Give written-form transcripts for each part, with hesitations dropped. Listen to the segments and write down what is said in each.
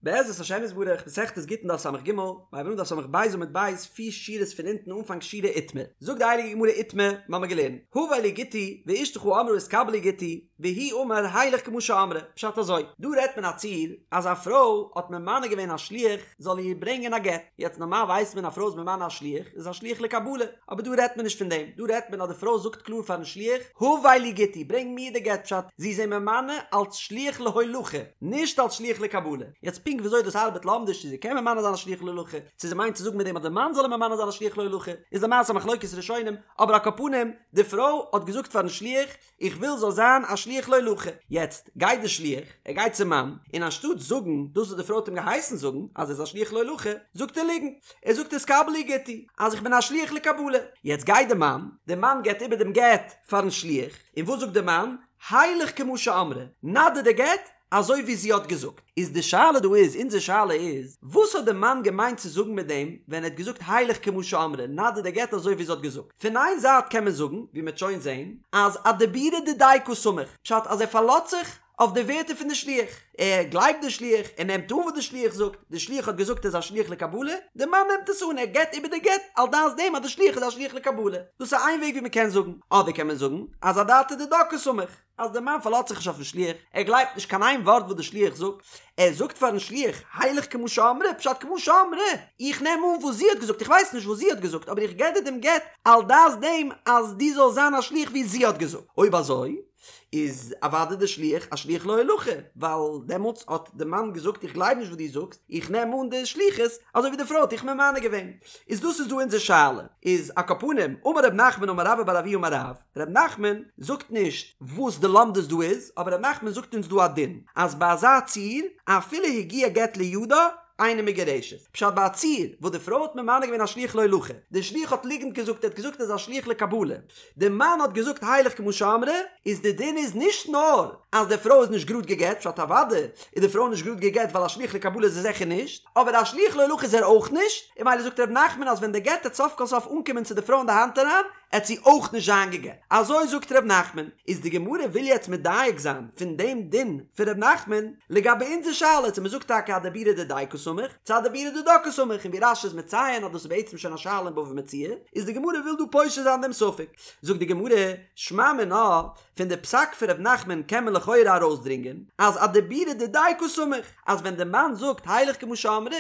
בעזרת השם יתברך, מסכת גיטין דף סג, מ'הייבן אן דף ס"ב עמוד ב', פיר שורות פון אונטן אנפאנג שורה איתמר. זאגט די הייליגע גמרא איתמר, מ'האמיר געלערנט, הבא לי גיטי, ואשתך אמרה התקבל לי גיטי, והוא אמר הילך כמו שאמרה, פשט אזוי, דא רעדט מען א ציור אז א פרוי האט ממנה געווען א שליח זאל איר ברענגען א גט, יעצט נארמאל ווייסט מען א פרוי איז ממנה א שליח איז א שליח לקבלה, אבער דא רעדט מען נישט פון דעם, דא רעדט מען אז די פרוי זאגט קלאר פארן שליח, הבא לי גיטי, ברענג מיר די גט, פשט, זי איז אים ממנה אלס שליח להולכה, נישט אלס שליח לקבלה. יעצט פונקט וויאזוי דאס ארבעט לומדיש צו זי קען ממנה זיין א שליח להולכה, צו זי מיינט צו זאגן מיט דעם אז די מאן זאל אים ממנה זיין א שליח להולכה, איז למעשה א מחלוקת ראשונים, אבער על כל פנים, די פרוי האט געזאגט פארן שליח, איך וויל זאל זיין א שליח להולכה. יעצט גייט די שליח, ער גייט צום מאן, און אנשטאט זאגן דאס וואס די פרוי האט אים געהייסן זאגן, אז ער איז א שליח להולכה, זאגט ער ליגנט, ער זאגט התקבל לי גיטי, אז איך בין א שליח לקבלה. יעצט גייט די מאן, די מאן געבט איבער דעם גט פארן שליח, און וואס זאגט די מאן? הילך כמו שאמרה, נא דיר די גט אזוי ווי זי האט געזאגט. איז די שאלה דא איז, אונזער שאלה איז, וואס האט די מאן געמיינט צו זאגן מיט דעם ווען ער האט געזאגט הילך כמו שאמרה, נא דיר די גט אזוי ווי זי האט געזאגט? פון איין זייט קען מען זאגן, ווי מ'עט שוין זען, אז אדיבורא דידיה קא סמיך, פשט אז ער פארלאזט זיך אויף די ווערטער פון די שליח, ער גלייבט די שליח, ער נעמט אן וואס די שליח זאגט, די שליח האט געזאגט ער איז א שליח לקבלה, די מאן נעמט עס אן, ער געבט איבער די גט על דעת דעם אז די שליח איז א שליח לקבלה. דאס איז איין וועג ווי מ'קען זאגן. אדער קען מען זאגן אז אדעתא דידה קא סמיך. אז דער מאן פארלאזט זיך נישט אויפן שליח, ער גלייבט נישט קיין איין ווארט וואס דער שליח זאגט, ער זאגט פארן שליח, הילך כמו שאמרה, פשט כמו שאמרה, איך נעם אן וואס זי האט געזאגט, איך ווייס נישט וואס זי האט געזאגט, אבער איך געב דיר דעם גט על דעת דעם אז דו זאלסט זיין א שליח ווי זי האט געזאגט. אויב אזוי, איז אוודאי דער שליח א שליח להולכה, ווייל דעמאלטס האט דער מאן געזאגט איך גלייב נישט וואס דו זאגסט, איך נעם אן די שליחות אזוי ווי די פרוי האט דיך ממנה געווען. איז דאס איז דא אונזער שאלה. איז על כל פנים, אמר רב נחמן אמר רבה בר אבוה אמר רב, ר' נחמן זאגט נישט וואס די לומדות דא איז, אבער ר' נחמן זאגט אונז דא א דין, אז ביי אזא ציור, אפילו הגיע גט לידה, אינה מגורשת. פשט ביי א ציור וואס די פרוי האט ממנה געווען א שליח להולכה, די שליח האט ליגנט געזאגט, ער האט געזאגט ער איז א שליח לקבלה, די מאן האט געזאגט הילך כמו שאמרה, איז די דין איז נישט נאר אז די פרוי איז נישט גראד גע'גט, פשט אוודאי איז די פרוי נישט גראד גע'גט ווייל א שליח לקבלה איז ער זיכער נישט, אבער א שליח להולכה איז ער אויך נישט, און ממילא זאגט ר' נחמן אז ווען די גט עט סוף כל סוף אנקומען צו די פרוי אין די האנט אריין, עט זי אויך נישט זיין גע'גט. אזוי זאגט ר' נחמן. איז די גמרא וויל יעצט מדייק זיין פון דעם דין פון ר' נחמן לגבי אונזער שאלה צו מ'זאגט טאקע אדיבורא דידיה קא סמיך צו אדיבורא דידה קא סמיך און ווי רש"י איז מציין אז דאס איז בעצם שוין א שאלה אין בבא מציעא איז די גמרא וויל דא פושט זיין דעם ספק. זאגט די גמרא, שמע מינה, פון די פסק פון ר' נחמן קען מען לכאורה ארויסדרינגען אז אדיבורא דידיה קא סמיך אז ווען די מאן זאגט הילך כמו שאמרה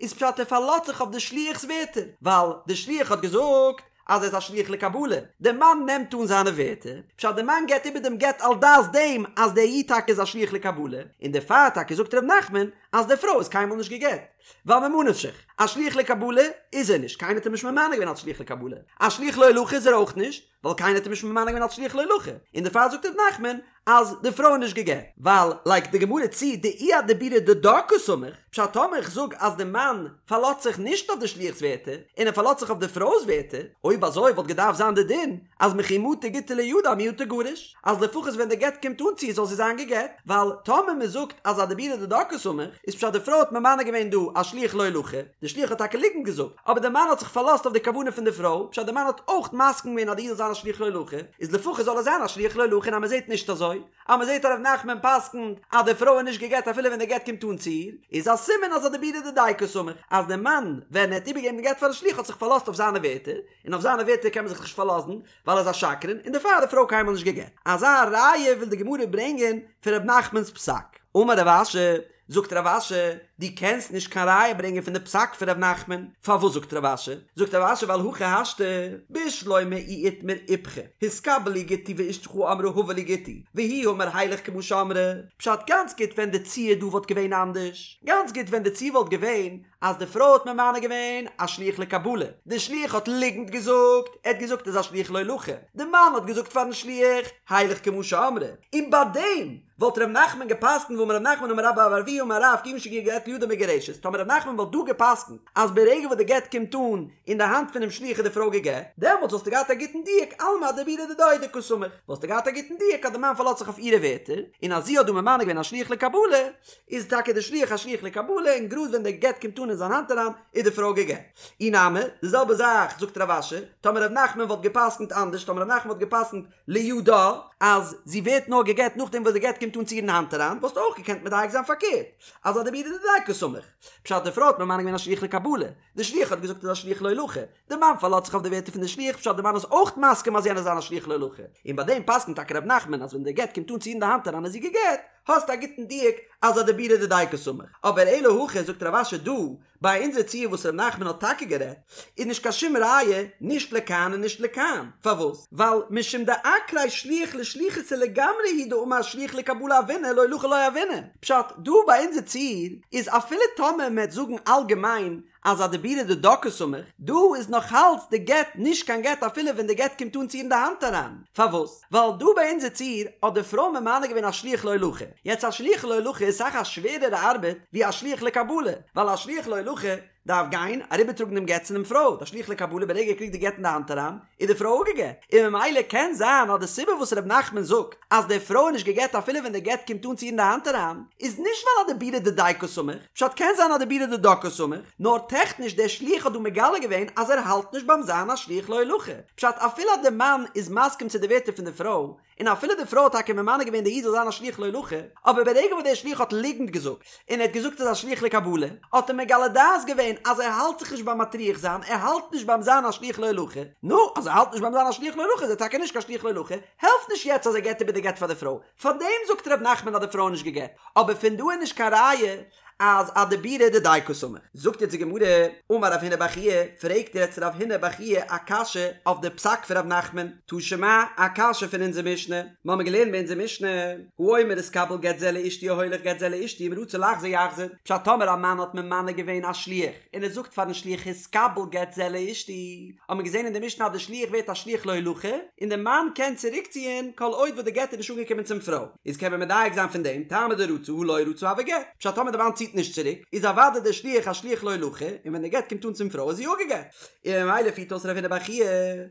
איז פשט ער פארלאזט זיך אויף די שליח'ס ווערטער ווייל די שליח האט געזאגט אז ער איז א שליח לקבלה, דער מאן נעמט אן זיינע ווערטער, פשט דער מאן געבט איבער דעם גט על דעת דעם אז דער איד טאקע איז א שליח לקבלה, און דערפאר טאקע זאגט ר' נחמן אז די פרוי איז קיינמאל נישט גע'גט, ווייל ממה נפשך, א שליח לקבלה איז ער נישט, קיינער האט אים נישט ממנה געווען אלס שליח לקבלה, א שליח להולכה איז ער אויך נישט, ווייל קיינער האט אים נישט ממנה געווען אלס שליח להולכה, און דערפאר זאגט ר' נחמן אז די פרוי איז נישט גע'גט, ווייל לייגט די גמרא צו דאי אדיבורא דידה קא סמיך, פשט טאמער איך זאג אז די מאן פארלאזט זיך נישט אויף די שליח'ס ווערטער, און ער פארלאזט זיך אויף די פרוי'ס ווערטער, אויב אזוי וואלט געדארפט זיין די דין אז מכי מטא גיטא לידה מיהא תיגרש, אז לפחות ווען די גט קומט אן צו איר זאל זי זיין גע'גט, ווייל טאמער מען זאגט אז אדיבורא דידה קא סמיך, איז פשט די פרוי האט ממנה געווען דא א שליח להולכה, די שליח האט טאקע ליגנט געזאגט, אבער די מאן האט זיך פארלאזט אויף די כוונה פון די פרוי, פשט די מאן האט אויך מסכים געווען אז די איד זאל זיין א שליח להולכה, איז לפחות זאל ער זיין א שליח להולכה און אז מען זעט נישט אזוי, אז מען זעט אז ר' נחמן פסק'נט אז די פרוי איז נישט גע'גט אפילו ווען די גט קומט אן צו איר, איז א סימן אז אדיבורא דידיה קא סמיך, אז די מאן ווען ער האט איבערגעגעבן די גט פארן שליח האט זיך פארלאזט אויף זיינע ווערטער, און אויף זיינע ווערטער קען מען זיך נישט פארלאזן, ווייל ער איז א שקרן, און דערפאר איז די פרוי קיינמאל נישט גע'גט. אזא ראיה וויל די גמרא ברענגען פון ר' נחמנ'ס פסק. אמר רב אשי, זאגט רב אשי, דו קענסט נישט קיין ראיה ברענגען פון די פסק פון ר' נחמן, פארוואס זאגט רב אשי? זאגט רב אשי ווייל הכי השתא, בשלמא אי איתמר איפכא, התקבל לי גיטי ואשתך אמרה הבא לי גיטי, והוא אמר הילך כמו שאמרה, פשט גאנץ גוט ווען די ציור דא וואלט געווען אנדערש, גאנץ גוט ווען די ציור וואלט געווען אז די פרוי האט ממנה געווען א שליח לקבלה, די שליח האט ליגנט געזאגט, ער האט געזאגט ער איז א שליח להולכה, די מאן האט געזאגט פארן שליח הילך כמו שאמרה, און ביי דעם וואלט ר' נחמן געפסקנט והאמר ר' נחמן אמר רבה בר אבוה אמר רב כיון שהגיע גט לידה מגורשת, טאמער ר' נחמן וואלט דא געפסקנט אז ברגע וואס די גט קומט אן אין די האנט פונעם שליח איז די פרוי גע'גט, דעמאלטס וואלסטו געהאט א גוטן דיוק אלמא אדיבורא דידה הוא דקא סמיך, וואלסטו געהאט א גוטן דיוק אז די מאן פארלאזט זיך אויף אירע ווערטער, און אז זי האט דא ממנה געווען א שליח לקבלה, איז טאקע די שליח א שליח לקבלה און גראד ווען די גט קומט אן אין זיין האנט אריין איז די פרוי גע'גט. אי נמי, די זעלבע זאך זאגט רב אשי, טאמער ר' נחמן וואלט געפסקנט אנדערש, טאמער ר' נחמן וואלט געפסקנט לידה, אז זי ווערט נאר גע'גט נאכדעם וואס די גט קומט. קומט אן צו איר אין האנט אריין וואלסטו אויך געקענט מדייק זיין פארקערט אז אדיבורא דידיה קסמיך. פשט די פרוי האט ממנה געווען א שליח לקבלה, די שליח האט געזאגט איז א שליח להולכה, די מאן פארלאזט זיך אויף די ווערטער פון די שליח פשט די מאן איז אויך מסכים אז יענער זיין א שליח להולכה, און ביי דעם פסק'נט טאקע ר' נחמן אז ווען די גט קומט אן צו איר אין די האנט אריין איז זי גע'גט, האסט א גוטן דיוק אז אדיבורא דידיה קסמיך. אבער אלא הכא זאגט רב אשי דא ביי אונזער ציור וואס ר' נחמן האט טאקע גערעדט איז נישט קיין שום ראיה נישט לכאן און נישט לכאן, פארוואס? ווייל משום דעקריה שליח לשליחותא לגמרי הוא דאמר שליח לקבלה הוינא להולכה לא הוינא, פשט, דא ביי אונזער ציור איז אפילו טאמער מ'עט זאגן אלגעמיין אז אדיבורא דידה קסמיך, דא איז נאכאלץ די גט נישט קיין גט אפילו ווען די גט קומט אן צו איר אין די האנט אריין, פארוואס? ווייל דא ביי אונזער ציור האט די פרוי ממנה געווען א שליח להולכה, יעצט א שליח להולכה איז אסאך א שווערערע ארבעט ווי א שליח לקבלה, ווייל א שליח להולכה דארף גיין אריבערטראגן דעם גט צו דעם פרוי, די שליח לקבלה ברגע ער קריגט די גט אין די האנט אריין איז די פרוי אפגעגט, און ממילא קען זיין אז די סיבה וואס ר' נחמן זאגט אז די פרוי איז נישט געגט אפילו ווען די גט קומט אן צו איר אין די האנט אריין איז נישט ווייל אדיבורא דידיה קסמיך, פשט קען זיין אדיבורא דידה קסמיך, נאר טעכניש דער שליח האט דא מגלה געווען אז ער האלט נישט ביים זיין א שליח להולכה, פשט אפילו אז די מאן איז מסכים צו די ווערטער פון די פרוי, און אפילו די פרוי האט טאקע ממנה געווען די איד זאל זיין א שליח להולכה, אבער ברגע וואס דער שליח האט ליגנט געזאגט, און ער האט געזאגט ער איז א שליח לקבלה, האט ער מגלה דעת געווען אז ער האלט זיך נישט ביים מטריח זיין, ער האלט נישט ביים זיין א שליח להולכה, נו, אז ער האלט נישט ביים זיין א שליח להולכה איז ער טאקע נישט קיין שליח להולכה, העלפט נישט יעצט אז ער געבט איבער די גט פאר די פרוי, פארדעם זאגט ר' נחמן אז די פרוי איז נישט גע'גט, אבער פון דא איז נישט קיין ראיה אז אדיבורא דידיה קסמיך. זאגט יעצט די גמרא, אמר רב הונא בר חייא, פרעגט יעצט רב הונא בר חייא א קשיא אויף די פסק פון ר' נחמן, תא שמע, א קשיא פון אונזער משנה, מיר האבן געלערנט ביי אונזער משנה, האומר התקבל גט זה לאשתי או הולך גט זה לאשתי אם רצה לחזור יחזור, פשט טאמער א מאן האט ממנה געווען א שליח און ער זאגט פארן שליח התקבל גט זה לאשתי, האט מען געזען אין די משנה אז די שליח ווערט א שליח להולכה, און די מאן קען צוריקציען כל עוד וואס די גט איז נישט אנגעקומען צום פרוי. איז קען מען מדייק זיין פון דעם, טעמא דרצה הא לא רצה הוי גט, פשט טאמער די מאן ציט נישט צוריק, איז אוודאי דער שליח א שליח להולכה, און ווען די גט קומט אן צום פרוי איז זי אפגעגט. און ממילא פירט אויס רב הונא בר חייא,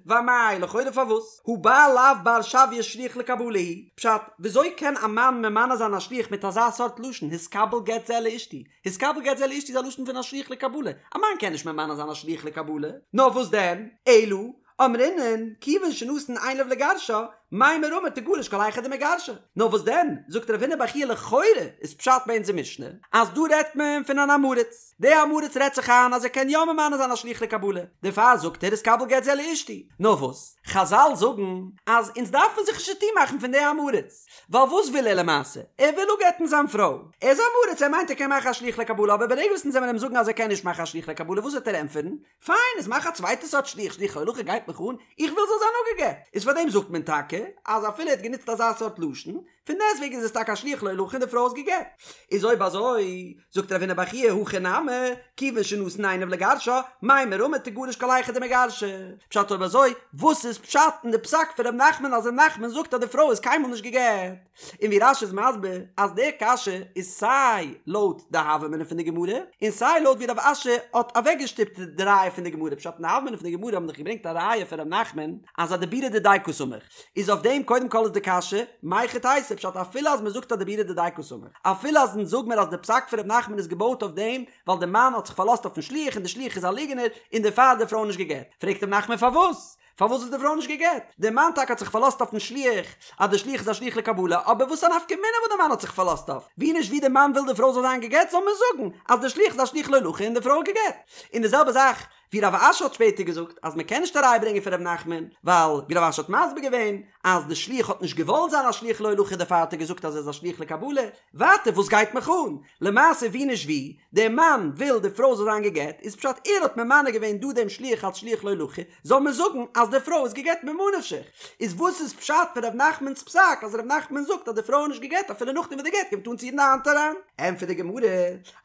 ואמאי, לכאורה פארוואס? הא בעל לאו בר שויי שליח לקבלה הוא, פשט, וויאזוי קען א מאן ממנה זיין א שליח מיט אזא סארט לשון, התקבל גט זה לאשתי, התקבל גט זה לאשתי איז א לשון פון א שליח לקבלה, א מאן קען נישט ממנה זיין א שליח לקבלה, נאר וואס דען, אלא, אמרינן, כיוון שנתן עיניו לגרשה, מימר אמר תגרש כל היכא דמגרשה. נאר וואס דען, זאגט רב הונא בר חייא לכאורה איז פשט ביי אונזער משנה, אז דא רעדט מען פון אן עם הארץ, דער עם הארץ רעדט זיך איין אז ער קען יא ממנה זיין א שליח לקבלה, דערפאר זאגט ער התקבל גט זה לאשתי. נאר וואס, חזל זאגן אז אונז דארפן זיך נישט צוטון מאכן פון די עם הארץ, ווייל וואס וויל ער למעשה? ער וויל אפגט'ן זיין פרוי. ער איז עם הארץ, ער מיינט ער קען מאכן א שליח לקבלה, אבער ברגע וואס אונז וועלן אים זאגן אז ער קען נישט מאכן א שליח לקבלה, וואס וועט ער ענטפערן? פיין, איז מאך א צווייטע סארט שליח, שליח להולכה גייט מיך אן, איך וויל זאל זיין אפגעגט. איז פאר דעם זאגט מען טאקע אז אפילו ער האט גענוצט אזא סארט לשון, פון דעסטוועגן איז עס טאקע א שליח להולכה און די פרוי איז געגט. איז אויב אזוי, זאגט רב הונא בר חייא הכא נמי, כיוון שנתן עיניו לגרשה, מימר אמר תגרש כל היכא דמגרשה. פשט אויב אזוי, וואס איז פשט אין די פסק פון ר' נחמן אז ר' נחמן זאגט אז די פרוי איז קיינמאל נישט געגט? און ווי רש"י איז מסביר אז די קשיא איז סיי לויט די הוה אמינא פון די גמרא און סיי לויט ווי רב אשי האט אוועקגעשטופט די ראיה פון די גמרא פשט אין די הוה אמינא פון די גמרא האבן דאך געברענגט א ראיה פון ר' נחמן אז אדיבורא דידיה קסמיך איז אויף דעם קודם כל איז די קשיא מהיכי תיתי פשט אפילו אז מען זאגט אדיבורא דידיה קסמיך אפילו אז אונז זאג מיר אז די פסק פון ר' נחמן איז געבויט אויף דעם ווייל די מאן האט זיך פארלאזט אויפן שליח און די שליח איז א ליגענער און דערפאר איז די פרוי נישט געגט פרעגט ר' נחמן פארוואס פארוואס איז די פרוי נישט גע'גט? דער מאן טאקע האט זיך פארלאזט אויפן שליח, אז דער שליח איז א שליח לקבלה, אבער וואס א נפקא מינה וואס דער מאן האט זיך פארלאזט אויף? ווי נישט ווי דער מאן וויל די פרוי זאל זיין גע'גט זאל מען זאגן אז דער שליח איז א שליח להולכה און די פרוי איז גע'גט. און די זעלבע זאך ווי רב אשי האט שפעטער געזאגט אז מען קען נישט א ראיה ברענגען פון ר' נחמן, ווייל ווי רב אשי האט מסביר געווען אז די שליח האט נישט געוואלט זיין א שליח להולכה דערפאר האט ער געזאגט אז ער איז א שליח לקבלה, ווייטער וואס גייט מיך אן? למעשה ווי נישט ווי, דער מאן וויל די פרוי זאל זיין גע'גט, איז פשט ער האט ממנה געווען דא דעם שליח אלס שליח להולכה, זאל מען זאגן אז די פרוי איז גע'גט ממה נפשך? איז וואס איז פשט פון ר' נחמנ'ס פסק אז ר' נחמן זאגט אז די פרוי איז נישט גע'גט אפילו נאכדעם וואס די גט קומט אן צו איר אין די האנט אריין? ענטפערט די גמרא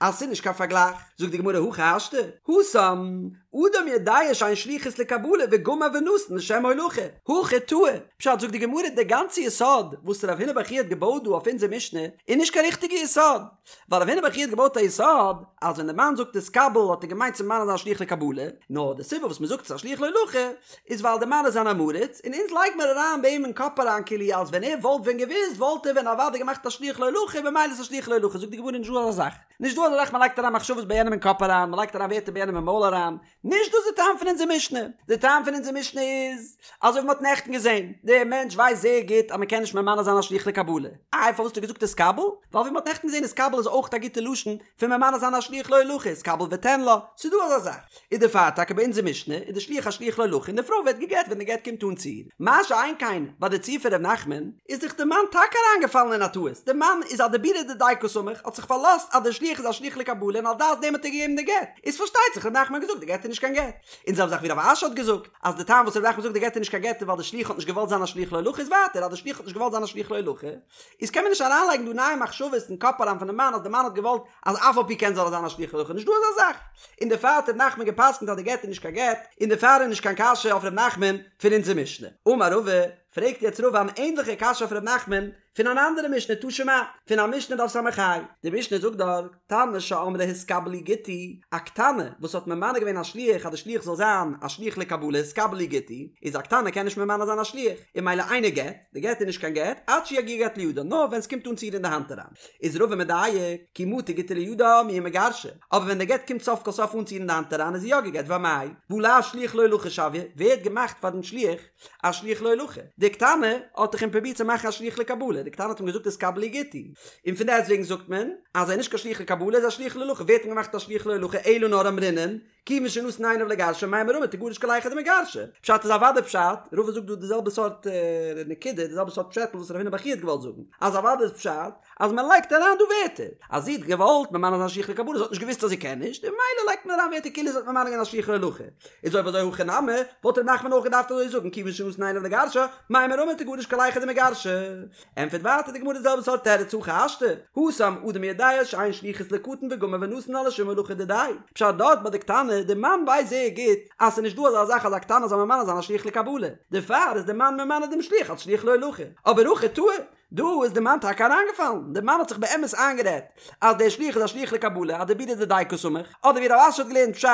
אז ס'איז נישט קיין פארגלייך, זאגט די גמרא הכי השתא, התם, אדם יודע שאין שליחות לקבלה וגמר ונתן לשם הולכה, הכא טעה, פשט זאגט די גמרא די גאנצע יסוד וואס רב הונא בר חייא האט געבויט דא אויף אונזער משנה איז נישט קיין ריכטיגע יסוד, ווייל רב הונא בר חייא האט געבויט א יסוד אז ווען די מאן זאגט התקבל האט ער געמיינט צו ממנה זיין א שליח לקבלה, נאר די סיבה וואס מ'זאגט ס'איז א שליח להולכה איז ווייל די מאן איז אן עם הארץ און אונז לייג מיר אריין ביי אים אין קאפ אריין כאילו אז ווען ער וואלט ווען געוואוסט וואלט ער ווען אוודאי געמאכט א שליח להולכה במילא איז א שליח להולכה זאגט די גמרא נישט דא אזא זאך נישט דא אזא זאך מ'לייגט אריין מחשבות ביי יענעם אין קאפ אריין מ'לייגט אריין ווערטער ביי יענעם אין מויל אריין. נישט דאס איז די טעם פון אונזער משנה, די טעם פון אונזער משנה איז, אזוי ווי מ'האט נעכטן געזען, דער מענטש ווייסט זייער גוט אז מ'קען נישט ממנה זיין א שליח לקבלה, איי פארוואס האט ער געזאגט התקבל? ווייל ווי מ'האט נעכטן געזען התקבל איז אויך א גוטע לשון פון ממנה זיין א שליח להולכה, התקבל ותן לה, ס'איז דא אזא זאך. איז דערפאר טאקע ביי אונזער משנה איז די שליח א שליח להולכה און די פרוי ווערט גע'גט ווען די גט קומט אן צו איר. מה שאין כן ביי די ציור פון ר' נחמן איז דאך די מאן טאקע אריינגעפאלן אין א טעות, די מאן איז אדיבורא דידיה קא סמיך האט זיך פארלאזט אז די שליח איז א שליח לקבלה און על דעת דעם האט ער געגעבן די גט, איז פארשטייט זיך ר' נחמן האט געזאגט די גט איז נישט קיין גט. און זעלבע זאך ווי רב אשי האט געזאגט אז די טעם וואס ר' נחמן זאגט די גט איז נישט קיין גט איז ווייל די שליח האט נישט געוואלט זיין א שליח להולכה איז ווייטער אז די שליח האט נישט געוואלט זיין א שליח להולכה איז קען מען נישט אריינלייגן דא נייע מחשבות אין קאפ אריין פונעם מאן אז די מאן האט געוואלט אז אף על פי כן זאל ער זיין א שליח להולכה נישט דא אזא זאך און דערפאר האט ר' נחמן געפסקנט אז די גט איז נישט קיין גט און דערפאר איז נישט קיין קשיא אויף ר' נחמן פון אונזער משנה אמר רבא פרעגט יעצט רבא אן ענדליכע קשיא אויף ר' נחמן פון אן אנדערע משנה תא שמע, פון א משנה דף ס"ה, די משנה זאגט דארט, קטנה שאמרה התקבל לי גיטי, א קטנה וואס האט ממנה געווען א שליח אז די שליח זאל זיין א שליח לקבלה התקבל לי גיטי, איז א קטנה קען נישט ממנה זיין א שליח, און ממילא אינו גט, די גט איז נישט קיין גט, עד שיגיע גט לידה, נאר ווען ס'קומט אן צו איר אין די האנט אריין. איז רבא מדייק, כי מטא גיטא לידה מיהא מגרשה, אבער ווען די גט קומט סוף כל סוף אן צו איר אין די האנט אריין איז זי יא גע'גט, ואמאי, והא לאו שליח להולכה שויה, ווער האט געמאכט פאר דעם שליח א שליח להולכה. די קטנה האט דאך אים פרובירט צו מאכן א שליח לקבלה, די קטנה האט אים געזאגט התקבל לי גיטי, און פון דעסטוועגן זאגט מען אז ער איז נישט קיין שליח לקבלה, ער איז א שליח להולכה, ווער האט אים געמאכט א שליח להולכה אלא נאר אמרינן, כיוון שנתן עיניו לגרשה מימר אמר תגרש כל היכא דמגרשה. פשט איז אוודאי פשט, רבא זאגט דא די זעלבע סארט נקודה, די זעלבע סארט פשעטל וואס רב הונא בר חייא האט געוואלט זאגן, אז אוודאי איז פשט אז מען לייגט אריין דא ווערטער אז זי האט געוואלט ממנה זיין שליח לקבלה זי האט נישט געוואוסט אז זי קען נישט און ממילא לייגט מען אריין ווערטער כאילו זי האט ממנה געווען א שליח להולכה איז אויב אזוי הכא נמי וואלט ר' נחמן אויך געדארפט אזוי זאגן כיוון שנתן עיניו לגרשה מימר אמר תגרש כל היכא דמגרשה ענטפערט ווייטער די גמרא די זעלבע סארט תירוץ הכי השתא התם אדם יודע שאין שליחות לקטן וגמר ונתן לה לשום הולכה דידיה פשט דארט ביי די קטנה די מאן ווייסט זייער גוט אז ס'איז נישט דא אזא זאך אז א קטנה זאל ממנה זיין א שליח לקבלה דערפאר איז די מאן ממנה דעם שליח אלס שליח להולכה אבער הכא טעי דא איז די מאן טאקע אריינגעפאלן, די מאן האט זיך באמת איינגערעדט אז דער שליח איז א שליח לקבלה, אדיבורא דידיה קא סמיך, אדער ווי רב אשי האט געלערנט פשט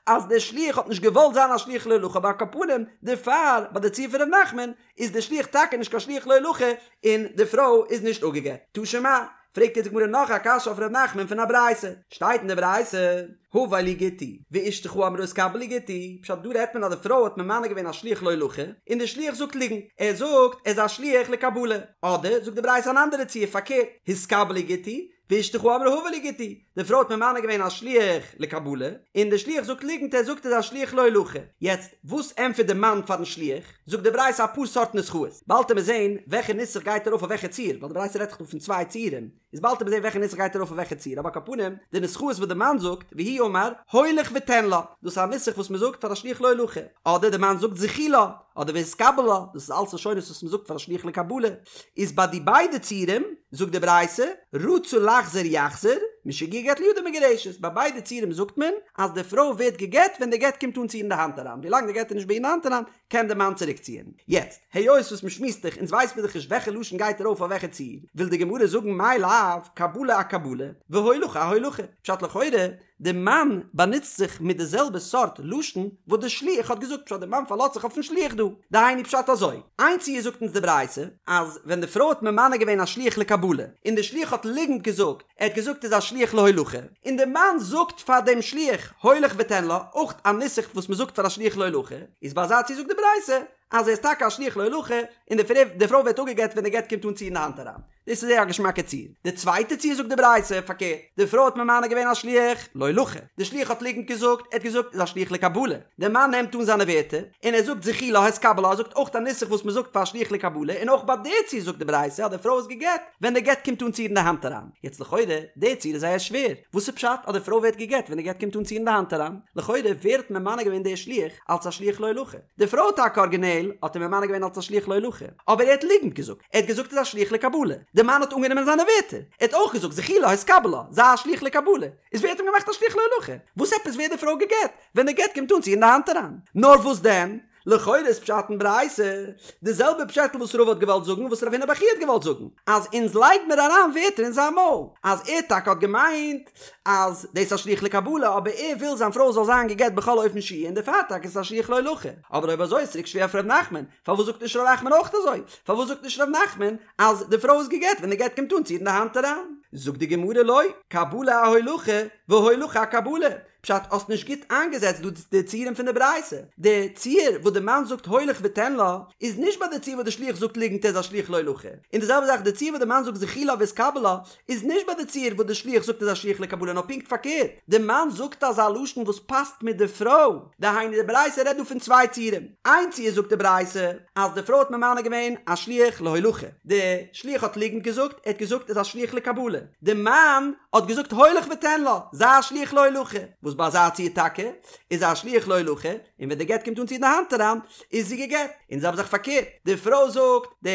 אז דער שליח האט נישט געוואלט זיין א שליח להולכה אבער על כל פנים דערפאר ביי די ציור פון ר' נחמן איז דער שליח טאקע נישט קיין שליח להולכה און די פרוי איז נישט אפגעגט. תא שמע, פרעגט יעצט די גמרא נאך א קשיא אויף ר' נחמן פון א ברייתא, שטייט אין די ברייתא, הבא לי גיטי, ואשתך אמרה התקבל לי גיטי, פשט דא רעדט מען אז די פרוי האט ממנה געווען א שליח להולכה, און די שליח זאגט ליגנט, ער זאגט ער איז א שליח לקבלה, אדער זאגט די ברייתא אן אנדערע ציור פארקערט, התקבל לי גיטי, ואשתך אמרה הבא לי גיטי, די פרוי האט ממנה געווען א שליח לקבלה, און די שליח זאגט ליגנט ער זאגט ער איז א שליח להולכה, יעצט וואס ענטפערט די מאן פארן שליח? זאגט די ברייתא אפאר סארט נוסחאות, באלד וועט מען זעהן וועלכע נוסח גייט ארויף אויף וועלכע ציור, ווייל די ברייתא רעדט דאך דא פון צוויי ציורים, איז באלד וועט מען זעהן וועלכע נוסח גייט ארויף אויף וועלכע ציור, אבער על כל פנים, די נוסחאות וואס די מאן זאגט, והוא אמר, הולך ותן לה, דאס איז א נוסח וואס מען זאגט פאר א שליח להולכה, אדער די מאן זאגט זכי לה, אדער והתקבל לה, דאס איז אלס לשונות וואס מען זאגט פאר א שליח לקבלה, איז ביי די ביידע ציורים, זאגט די ברייתא, רצה לחזור יחזור, משיגיע גט לידה מגורשת, ביי ביידע ציורים זאגט מען, אז די פרוי ווערט גע'גט ווען די גט קומט אן צו איר אין די האנט אריין, ווילאנג די גט איז נישט ביי איר אין די האנט אריין, קען די מאן צוריק ציען. יעצט, היות וואס מ'שמועסט דאך, אונז ווייס מיר דאך נישט וועלכע לשון גייט ארויף אויף וועלכע ציור, וויל די גמרא זאגן מאי לאו, קבלה אקבלה, והולכה אהולכה. פשט לכאורה, די מאן באנוצט זיך מיט די זעלבע סארט לשון וואס די שליח האט געזאגט, פשט די מאן פארלאזט זיך אויפן שליח דא. דהיינו פשט אזוי, איין ציור זאגט אונז די ברייתא, אז ווען די פרוי האט ממנה געווען א שליח לקבלה, און די שליח האט ליגנט געזאגט, ער האט געזאגט איז א שליח להולכה, און די מאן זאגט פאר דעם שליח הולך ותן לה, אויך א נוסח וואס מען זאגט פאר א שליח להולכה, איז ביי אזא ציור זאגט די ברייתא אז ער איז טאקע א שליח להולכה, און די פרוי ווערט אפגעגט ווען די גט קומט אן צו איר אין די האנט אריין. דאס איז זייער א געשמאקע ציור. די צווייטע ציור זאגט די ברייתא פארקערט, די פרוי האט ממנה געווען א שליח להולכה, די שליח האט ליגנט געזאגט, ער האט געזאגט איז א שליח לקבלה, די מאן נעמט אן זיינע ווערטער, און ער זאגט זכי לה התקבל לה, ער זאגט אויך א נוסח וואס מען זאגט פאר א שליח לקבלה, און אויך ביי די ציור זאגט די ברייתא אז די פרוי איז געגט, ווען די גט קומט אן צו איר אין די האנט אריין. יעצט לכאורה, די ציור איז זייער שווער. וואס איז פשט אז די פרוי ווערט געגט ווען די גט קומט אן צו איר אין די האנט אריין? לכאורה, ווער האט ממנה געווען די שליח אלץ א שליח להולכה? די פרוי טאקע ארגינעל האט אים ממנה געווען אלץ א שליח להולכה, אבער ער האט ליגנט געזאגט, ער האט געזאגט איז א שליח לקבלה. די מאן האט אנגענומען זיינע ווערטער, ער האט אויך געזאגט זכי לה התקבל לה, זיי א שליח לקבלה. איז ווער האט אים געמאכט א שליח להולכה? וואס עפעס ווערט די פרוי געגט ווען די גט קומט אן צו איר אין די האנט אריין? נאר וואס דען? לכאורה איז פשט אין ברייתא די זעלבע פשעטל וואס רבא האט געוואלט זאגן וואס רב הונא בר חייא האט געוואלט זאגן, אז אונז לייג מיר אריין ווערטער אין זיין מויל, אז ער טאקע האט געמיינט אז דאס איז א שליח לקבלה אבער ער וויל זיין פרוי זאל זיין געגט בכל אופן שיהיה און דערפאר טאקע איז עס א שליח להולכה. אבער אויב אזוי איז צוריק שווער אויף ר' נחמן, פארוואס זאגט נישט ר' נחמן אויך אזוי? פארוואס זאגט נישט ר' נחמן אז די פרוי איז געגט ווען די גט קומט אן צו איר אין די האנט אריין? זאגט די גמרא לא, קבלה אהולכה והולכה אקבלה, פשט האסט נישט גוט איינגעזעצט דא די ציורים פון די ברייתא, די ציור וואס די מאן זאגט הולך ותן לה איז נישט ביי די ציור וואס די שליח זאגט ליגנט ער איז א שליח להולכה, און די זעלבע זאך די ציור וואס די מאן זאגט זכי לה והתקבל לה איז נישט ביי די ציור וואס די שליח זאגט איז א שליח לקבלה נאר פונקט פארקערט די מאן זאגט אזא לשון וואס פאסט מיט די פרוי, דהיינו די ברייתא רעדט דא פון צוויי ציורים, איין ציור זאגט די ברייתא אז די פרוי האט ממנה געווען א שליח להולכה, די שליח האט ליגנט געזאגט ער האט געזאגט איז א שליח לקבלה, די מאן האט געזאגט הולך ותן לה, זיי א שליח להולכה, וואס ביי אזא ציור טאקע איז א שליח להולכה, און ווען די גט קומט אן צו איר אין די האנט אריין, איז זי גע'גט. און די זעלבע זאך פארקערט, די פרוי זאגט די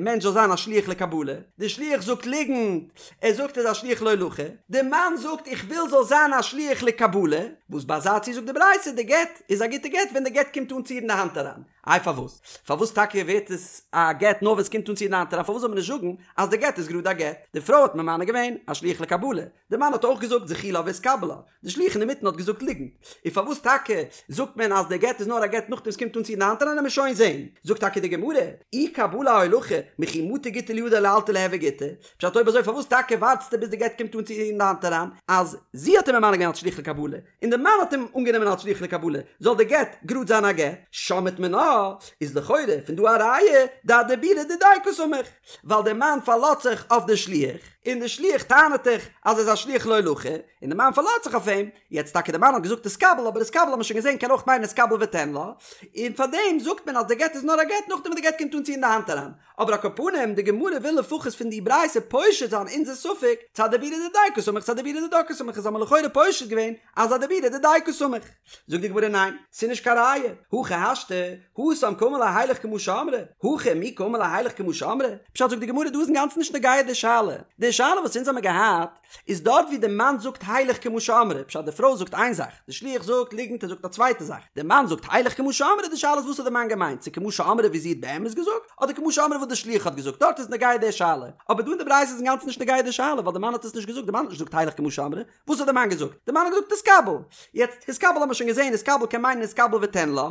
מענטש זאל זיין א שליח לקבלה, די שליח זאגט ליגנט, ער זאגט ער איז א שליח להולכה, די מאן זאגט איך וויל זאל זיין א שליח לקבלה, וואס ביי אזא ציור זאגט די ברייתא די גט איז א גוטע גט ווען די גט קומט אן צו איר אין די האנט אריין. איי פארוואס? פארוואס טאקע ווערט עס א גט נאר ווען עס קומט אן צו איר אין די האנט אריין? פארוואס זאל מען נישט זאגן אז די גט איז גראד א גט? די פרוי האט ממנה געווען א שליח לקבלה, די מאן האט אויך געזאגט זכי לה והתקבל לה, די שליח אינמיטן האט געזאגט ליגנט. און פארוואס טאקע זאגט מען אז די גט איז נאר א גט נאכדעם עס קומט אן צו איר אין די האנט אריין עמיר שוין זעהן. זאגט טאקע די גמרא, אי קבלה אהולכה, מכי מטא גיטא לידה לאלתר ליהוי גיטא, פשט אויב אזוי פארוואס טאקע ווארטסטו ביז די גט קומט אן צו איר אין די האנט אריין, אז זי האט אים ממנה געווען אלס שליח לקבלה, און די מאן האט אים אנגענומען אלס שליח לקבלה, זאל די גט גראד זיין א גט? שמעת מינה, איז לכאורה פון דא א ראיה דאדיבורא דידיה קסמיך, ווייל די מאן פארלאזט זיך אויף די שליח, און די שליח טענה'ט דאך אז ער איז א שליח להולכה, און די מאן פארלאזט זיך אויף אים, יעצט טאקע די מאן האט געזאגט התקבל, אבער התקבל האט מען שוין געזען קען אויך מיינען התקבל ותן לה, און פארדעם זאגט מען אז די גט איז נאר א גט נאכדעם וואס די גט קומט אן צו אין די האנט אריין, אבער על כל פנים די גמרא וויל לפחות פון די ברייתא פושט זיין אונזער ספק, צו אדיבורא דידיה קסמיך צו אדיבורא דידה קסמיך איז האט מען לכאורה פושט געווען אז אדיבורא דידיה קסמיך. זאגט די גמרא ניין, ס'איז נישט קיין ראיה, הכי השתא, התם קאמר ליה הילך כמו שאמרה, הכא מי קאמר ליה הילך כמו שאמרה, פשט זאגט די גמרא דא איז אינגאנצן נישט נוגע די שאלה, די שאלה וואס אונז האמיר געהאט איז דארט ווי די מאן זאגט הילך כמו שאמרה, פשט די פרוי זאגט איין זאך, די שליח זאגט ליגנט ער זאגט א צווייטע זאך, די מאן זאגט הילך כמו שאמרה, די שאלה איז וואס האט די מאן געמיינט, צו כמו שאמרה ווי זי האט באמת געזאגט, אדער כמו שאמרה וואס די שליח האט געזאגט, דארט איז נוגע די שאלה, אבער דא אין די ברייתא איז אינגאנצן נישט נוגע די שאלה, ווייל די מאן האט עס נישט געזאגט, די מאן האט נישט געזאגט הילך כמו שאמרה, וואס האט די מאן געזאגט? די מאן האט געזאגט התקבל. יעצט התקבל האט מען שוין געזען התקבל קען מיינען התקבל ותן לה,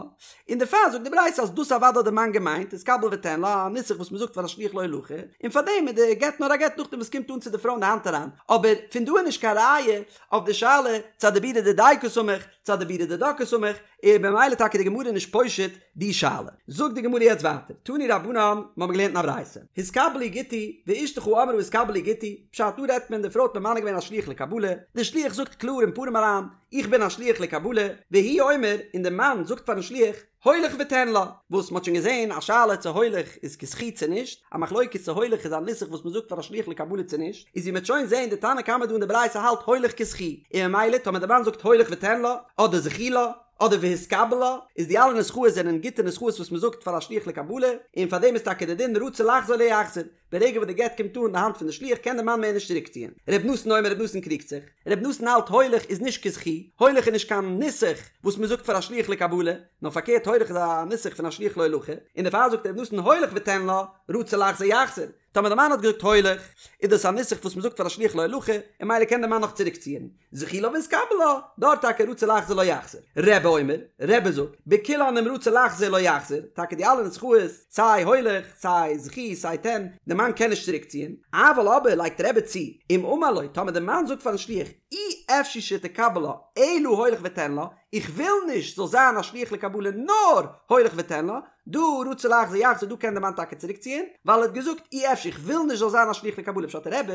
און דערפאר זאגט די ברייתא אז דאס אוודאי האט די מאן געמיינט התקבל ותן לה, א נוסח וואס מען זאגט פאר א שליח להולכה, און פארדעם איז די גט נאר א גט נאכדעם וואס קומט אן צו די פרוי אין די האנט אריין, אבער פון דא איז נישט קיין ראיה אויף די שאלה צו אדיבורא דידיה קסמיך צו אדיבורא דידה קסמיך, און במילא טאקע די גמרא נישט פושט די שאלה. זאגט די גמרא יעצט ווייטער, תנו רבנן, מיר האבן געלערנט אין א ברייתא, התקבל לי גיטי, ואשתך אמרה התקבל לי גיטי, פשט דא רעדט מען די פרוי האט ממנה געווען א שליח לקבלה, די שליח זאגט קלאר אין פנים אריין, איך בין א שליח לקבלה, והוא אומר, און די מאן זאגט פארן שליח, הולך ותן לה, וואס מ'האט שוין געזען א שאלה צו הולך איז כזכי צו נישט, א מחלוקת צו הולך איז א נוסח וואס מ'זאגט פאר א שליח לקבלה צו נישט, איז ווי מ'העט שוין זען די תנא קמא דא אין די ברייתא האלט הולך כזכי, און ממילא טאמער די מאן זאגט הולך ותן לה, אדער זכי לה, אדער והתקבל לה, איז די אלע נוסחאות זענען גוטע נוסחאות וואס מ'זאגט פאר א שליח לקבלה, און פאר דעם איז טאקע די דין רצה לחזור לא יחזיר, ברגע וואס די גט קומט אן אין די האנט פון די שליח קען די מאן מער נישט צוריקציען. ר' נתן אומר ר' נתן קריגט זיך. ר' נתן האלט הולך איז נישט כזכי, הולך איז נישט קיין נוסח וואס מ'זאגט פאר א שליח לקבלה, נאר פארקערט הולך איז א נוסח פון א שליח להולכה, און דערפאר זאגט ר' נתן הולך ותן לה, רצה לחזור יחזיר. טאמער די מאן האט געזאגט הולך, איז דאס א נוסח וואס מ'זאגט פאר א שליח להולכה, און ממילא קען די מאן נאך צוריקציען. זכי לה והתקבל לה, דארט טאקע רצה לחזור לא יחזיר. רבי אומר, רבי זאגט, בכולן אם רצה לחזור לא יחזיר, טאקע די אלע נוסחאות, סיי הולך, סיי זכי, סיי תן, די מאן קען נישט צוריקציען, אבל אבער לייגט רבי צו, אם אמר לו, טאמער די מאן זאגט פארן שליח, אי אפשי שתקבל לה, אלא הולך ותן לה, איך וויל נישט זאל זיין א שליח לקבלה נאר הולך ותן לה, דא רצה לחזור יחזיר דא קען די מאן טאקע צוריק ציען, ווייל ער האט געזאגט אי אפשי איך וויל נישט זאל זיין א שליח לקבלה פשט רבי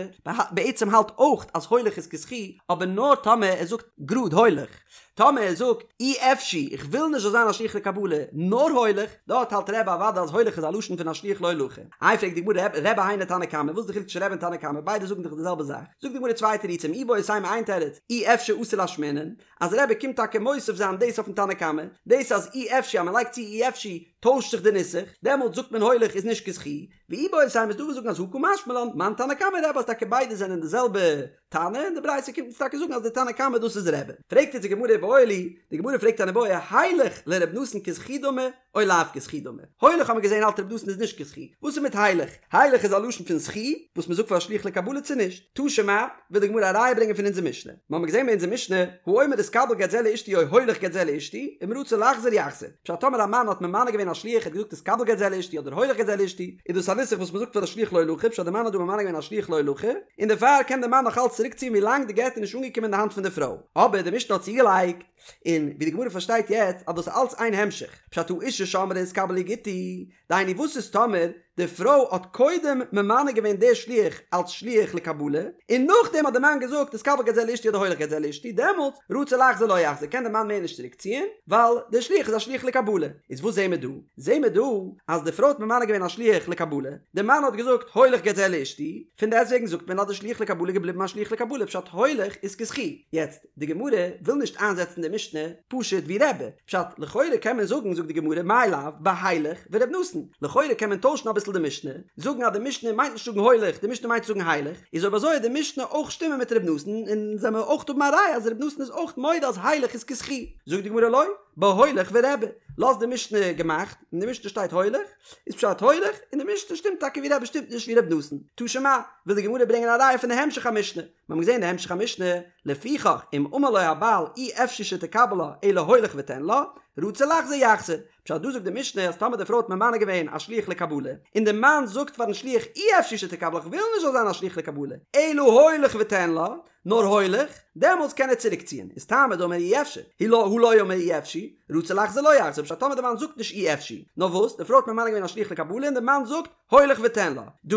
בעצם האלט אויך אז הולך איז כזכי אבער נאר טאמער ער זאגט גראד הולך, טאמער ער זאגט אי אפשי איך וויל נישט זאל זיין א שליח לקבלה נאר הולך, דארט האלט רבי אוודאי אז הולך איז א לשון פון א שליח להולכה. איי פרעגט די גמרא רבי היינו תנא קמא וואס איז די חילוק צווישן רבי און תנא קמא ביידע זאגן דאך די זעלבע זאך, זאגט די גמרא צוויי תירוצים איבעית אימא איין תירוץ אי אפשי אתא לאשמועינן, אז רבי קומט טאקע מוסיף זיין דאס אויפן תנא קמא, דאס אז אי אפשי אז מען לייגט צו אי אפשי טוישט זיך די נוסח, דעמאלטס זאגט מען הולך איז נישט כזכי, ואיבעית אימא איז דא וואס זאגן אז הא קא משמע לן, מאן תנא קמא רבי אז טאקע ביידע זענען די זעלבע תנא, און די ברייתא קומט אונז טאקע זאגן אז די תנא קמא דאס איז רבי. פרעגט יעצט די גמרא איבעיא להו, די גמרא פרעגט אן איבעיא, הילך לר' נתן כזכי דמי או לאו כזכי דמי? הולך האט מען געזען האלט ר' נתן איז נישט כזכי, וואס איז מיט הילך? הילך איז א לשון פון זכי וואס מען זאגט פאר א שליח לקבלה צו נישט? תא שמע, וויל די גמרא א ראיה ברענגען פון אונזער משנה. משנה, מיר האבן געזען ביי אונזער משנה, האומר התקבל גט זה לאשתי או הולך גט זה לאשתי, אם רצה לחזור יחזור. פשט טאמער א מאן האט ממנה געווען א שליח ער האט געזאגט התקבל גט זה לאשתי אדער הולך גט זה לאשתי, איז דאס א נוסח וואס מ'זאגט פאר די שליח להולכה, פשט די מאן האט דא ממנה געווען א שליח להולכה, און דערפאר קען די מאן נאך אלץ צוריקציען ווילאנג די גט איז נישט אנגעקומען אין די האנט פון די פרוי. אבער די משנה האט צוגעלייגט, און ווי די גמרא פארשטייט יעצט אז דאס איז אלץ איין המשך, פשט האשה שאמרה התקבל לי גיטי, דהיינו וואס איז טאמער די פרוי האט קודם ממנה געווען די שליח אלץ שליח לקבלה, און נאכדעם האט די מאן געזאגט התקבל גט זה לאשתי אדער הולך גט זה לאשתי, דעמאלטס רצה לחזור לא יחזור קען די מאן מער נישט צוריק ציען, ווייל די שליח איז א שליח לקבלה. איז וואס זעהן מיר דא? זעהן מיר דא אז די פרוי האט ממנה געווען א שליח לקבלה, די מאן האט געזאגט הולך גט זה לאשתי, פון דעסטוועגן זאגט מען אז די שליח לקבלה איז געבליבן א שליח לקבלה פשט הולך איז כזכי. יעצט, די גמרא וויל נישט איינזעצן די משנה פשוט ווי רבי, פשט לכאורה קען מען זאגן זאגט די גמרא מאי לאו בהילך ור' נתן, לכאורה קען מען טוישן אביסל די משנה, זאגן אז די משנה מיינט נישט זאגן הולך די משנה מיינט זאגן הילך, איז אויב אזוי וועט די משנה אויך שטימען מיט ר' נתן און זאל מען אויך האבן א ראיה אז ר' נתן איז אויך מודה אז הילך איז כזכי, זאגט די גמרא לא, בהולך ורבי, לאז די משנה געמאכט, אין די משנה שטייט הולך, איז פשט הולך, און די משנה שטימט טאקע ווי רבי שטימט נישט ווי ר' נתן, תא שמע, וויל די גמרא ברענגען א ראיה פון די המשך המשנה, מיר האבן געזען די המשך המשנה, לפיכך אם אמר לו הבעל אי אפשי שתקבל לה אלא הולך ותן לה, רצה לחזור יחזור. פשט דא זאגט די משנה אז טאמער די פרוי האט ממנה געווען א שליח לקבלה, און די מאן זאגט פארן שליח אי אפשי שתקבל לה כ'וויל נישט זאל זיין א שליח לקבלה, אלא הולך ותן לה, נאר הולך, דעמאלטס קען ער צוריק ציען, איז טעמא דאמר אי אפשי, הא לא הא לא אמר אי אפשי, רצה לחזור לא יחזור, פשט טאמער די מאן זאגט נישט אי אפשי, נאר וואס, די פרוי האט ממנה געווען א שליח לקבלה און די מאן זאגט, הולך ותן לה. דא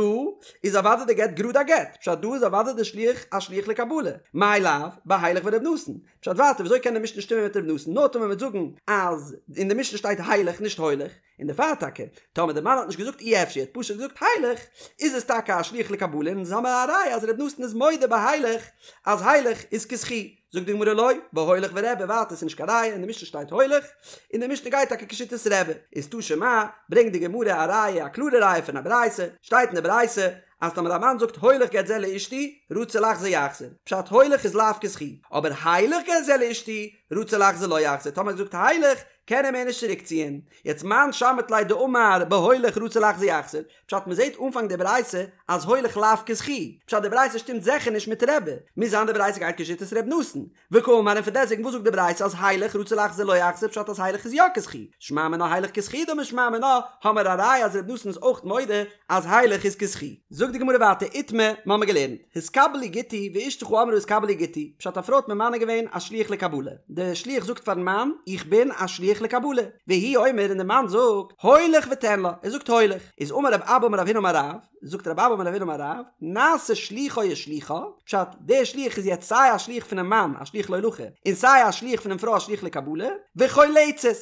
איז אוודאי די גט גראד א גט, פשט דא איז אוודאי די שליח א שליח לקבלה. מאי לאו, בהילך ור' נתן. פשט ווייטער וויאזוי קען די משנה שטימען מיט ר' נתן נאר טאמער מ'וועט זאגן אז אין די משנה שטייט הילך נישט הולך, און דערפאר טאקע טאמער די מאן האט נישט געזאגט אי אפשי ער האט פשוט געזאגט הילך איז עס טאקע א שליח לקבלה און אונז האמער א ראיה אז ר' נתן איז מודה בהילך אז הילך איז כזכי. זאגט די גמרא לא, בהולך ורבי, ווייטער ס'איז נישט קיין ראיה, אין די משנה שטייט הולך, און די משנה גייט טאקע כשיטת רבי, איז תא שמע, ברענגט די גמרא א ראיה, א קלארע ראיה פון א ברייתא, שטייט אין די ברייתא, אז טאמער א מאן זאגט הולך גט זה לאשתי, רצה לחזור יחזור, פשט הולך איז לאו כזכי, אבער הילך גט זה לאשתי, רצה לחזור לא יחזור, טאמער ער זאגט הילך, קען ער מער נישט צוריק ציען, יעצט מאן שמעת ליה דאמר בהולך רצה לחזור יחזור, פשט מ'זעט אנפאנג די ברייתא אז הולך לאו כזכי, פשט די ברייתא שטימט זיכער נישט מיט רבי, מוז זיין די ברייתא גייט כשיטת ר' נתן, וקאמר און פונדעסטוועגן וואס זאגט די ברייתא אז הילך רצה לחזור לא יחזור פשט אז הילך איז יא כזכי, שמע מינה הילך כזכי דמי שמע מינה האמער א ראיה אז ר' נתן איז אויך מודה אז הילך איז כזכי. זאגט די גמרא ווייטער איתמר, מ'האמער געלערנט, התקבל לי גיטי ואשתך אמרה התקבל לי גיטי, פשט א פרוי האט ממנה געווען א שליח לקבלה, די שליח זאגט פארן מאן איך בין א שליח לקבלה, והוא אומר און די מאן זאגט הולך ותן לה, ער זאגט הולך, איז אמר רב אבא אמר רב הונא אמר רב, זאגט רב אבא אמר רב הונא אמר רב, נעשה שלוחו ושלוחה, פשט דער שליח איז יעצט סיי א שליח פונעם מאן א שליח להולכה, און סיי א שליח פונעם פרוי א שליח לקבלה, וחולצת.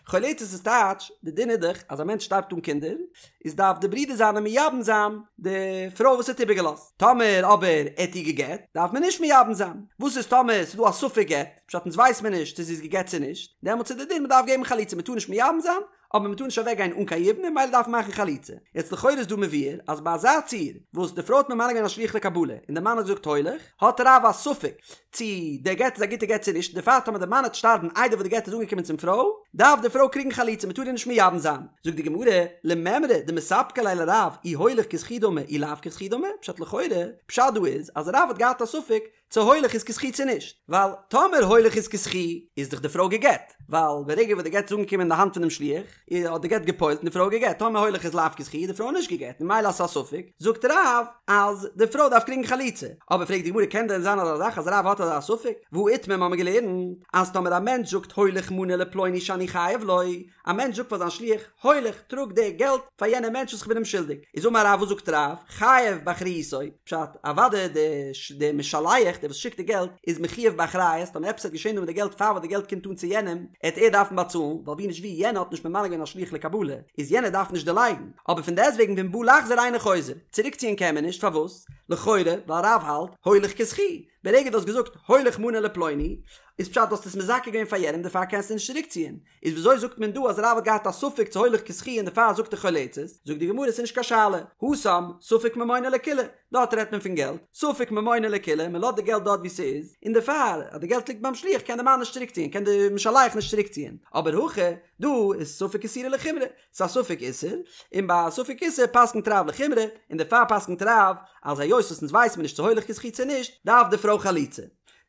חולצת איז טייטש, די דין איז דאך אז א מענטש שטארבט אן קינדער, איז דארף די ברודער זיינע מייבם זיין די פרוי וואס ער האט איבערגעלאזט, טאמער אבער ער האט איר גע'גט, דארף מען נישט מייבם זיין. וואס איז טאמער ס'איז דא א ספק גט, פשט אונז ווייס מיר נישט צו זי איז גע'גט צו נישט, דעמאלטס איז די דין מ'דארף געבן חליצה, מ'טאר נישט מייבם זיין, אבער מ'טאר נישט אוועק גיין אן קיין יבום און ממילא דארף מען מאכן חליצה. יעצט לכאורה איז דא מבואר אז ביי אזא ציור וואס די פרוי האט ממנה געווען א שליח לקבלה און די מאן האט געזאגט הולך, האט רב א ספק צי דער גט איז א גוטע גט צו נישט, דערפאר טאמער דער מאן העט שטארבן איידער וואס די גט איז אנגעקומען צום פרוי, דארף די פרוי קריגן חליצה, מ'טאר איר נישט מייבם זיין. זאגט די גמרא, למימרא דמספקא ליה לרב אי הולך כזכי דמי אי לאו כזכי דמי, פשט לכאורה, פשט דא איז אז רב האט געהאט א ספק צו הולך איז כזכי צו נישט, ווייל טאמער הולך איז כזכי איז דאך די פרוי גע'גט, ווייל ברגע וואס די גט איז אנגעקומען אין די האנט פונעם שליח, האט די גט גע'פועל'ט און די פרוי גע'גט, טאמער הולך איז לאו כזכי איז די פרוי נישט גע'גט, און ממילא אז ס'איז א ספק, זאגט רב אז די פרוי דארף קריגן חליצה, אבער פרעגט די גמרא קען דען זיין אזא זאך אז רב האט אזא ספק, והא איתמר מ'האמיר געלערנט אז טאמער א מענטש זאגט הולך מנה לפלוני שאני חייב לו, א מענטש זאגט פאר זיין שליח, הולך, טראג די געלט פאר יענעם מענטש וואס איך בין אים שולדיג. איז אמר רב, וואס זאגט רב? חייב באחריותו, פשט, אוודאי די משלח, דער וואס שיקט די געלט, איז מחויב באחריות, טאמער עפעס וועט געשען דא מיט די געלט פאר וואס די געלט קומט אן צו יענעם, עט ער דארפן באצאלן, ווייל ווי נישט ווי, יענער האט נישט ממנה געווען א שליח לקבלה, איז יענער דארף נישט דערלייגן. אבער פון דעסטוועגן ואם בא לחזור אינו חוזר, צוריקציען קען מען נישט, פארוואס? לכאורה, ווייל רב האלט, הולך כזכי, ברגע דו האסט געזאגט הולך מנה לפלוני, איז פשט דו האסט עס מזכה געווען פאר יענעם דערפאר קענסטו נישט צוריקציען. איז וויאזוי זאגט מען דא אז רב האט געהאט א ספק צו הולך כזכי און דערפאר זאגט ער חולצת? זאגט די גמרא ס'איז נישט קיין שאלה, התם ספק ממונא לקולא, דארט רעדט מען פון געלט, ספק ממונא לקולא, מען לאזט די געלט דארט ווי ס'איז, און דערפאר אז די געלט ליגט ביים שליח קען די מאן נישט צוריקציען, קען די משלח נישט צוריקציען, אבער הכא דא איז ספק איסורא לחומרא, ס'איז א ספק איסור, און ביי א ספק איסור פסק'נט רב לחומרא, און דערפאר פסק'נט רב אז היות וואס אונז ווייסן מיר נישט צו הולך כזכי צו נישט, דארף די פרוי חליצה.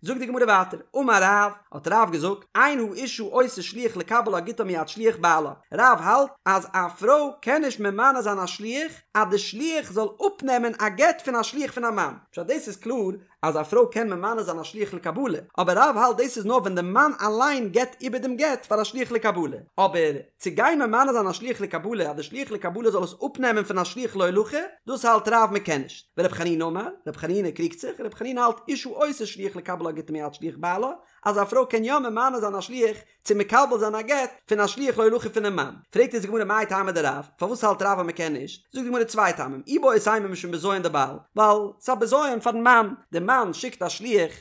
זאגט די גמרא ווייטער, אמר רב, האט רב געזאגט, אין האשה עושה שליח לקבל לה גיטה מיד שליח בעלה, רב האלט אז א פרוי קען נישט ממנה זיין א שליח אז די שליח זאל אפנעמען א גט פון א שליח פון א מאן, פשט דאס איז קלאר אז א פרוי קען ממנה זיין א שליח לקבלה, אבער רב האלט דאס איז נאר ווען די מאן אליין געבט איבער דעם גט פאר א שליח לקבלה, אבער צו גיין ממנה זיין א שליח לקבלה אז די שליח לקבלה זאל עס אפנעמען פון א שליח להולכה, דאס האלט רב מען קען נישט. ור' חנינא אמר, ר' חנינא קריגט זיך, ר' חנינא האלט אשה עושה שליח לקבל לה גיטה מיד שליח בעלה, אז א פרוי קען יא ממנה זיין א שליח צו מקבל זיין א גט פון א שליח להולכה פונעם מאן. פרעגט אונז די גמרא מאי טעמא דרב, פארוואס האלט רב אז מען קען נישט? זאגט די גמרא צוויי טעמים, איבעית אימא משום בזיון דבעל, ווייל ס'איז א בזיון פארן מאן, די מאן שיקט א שליח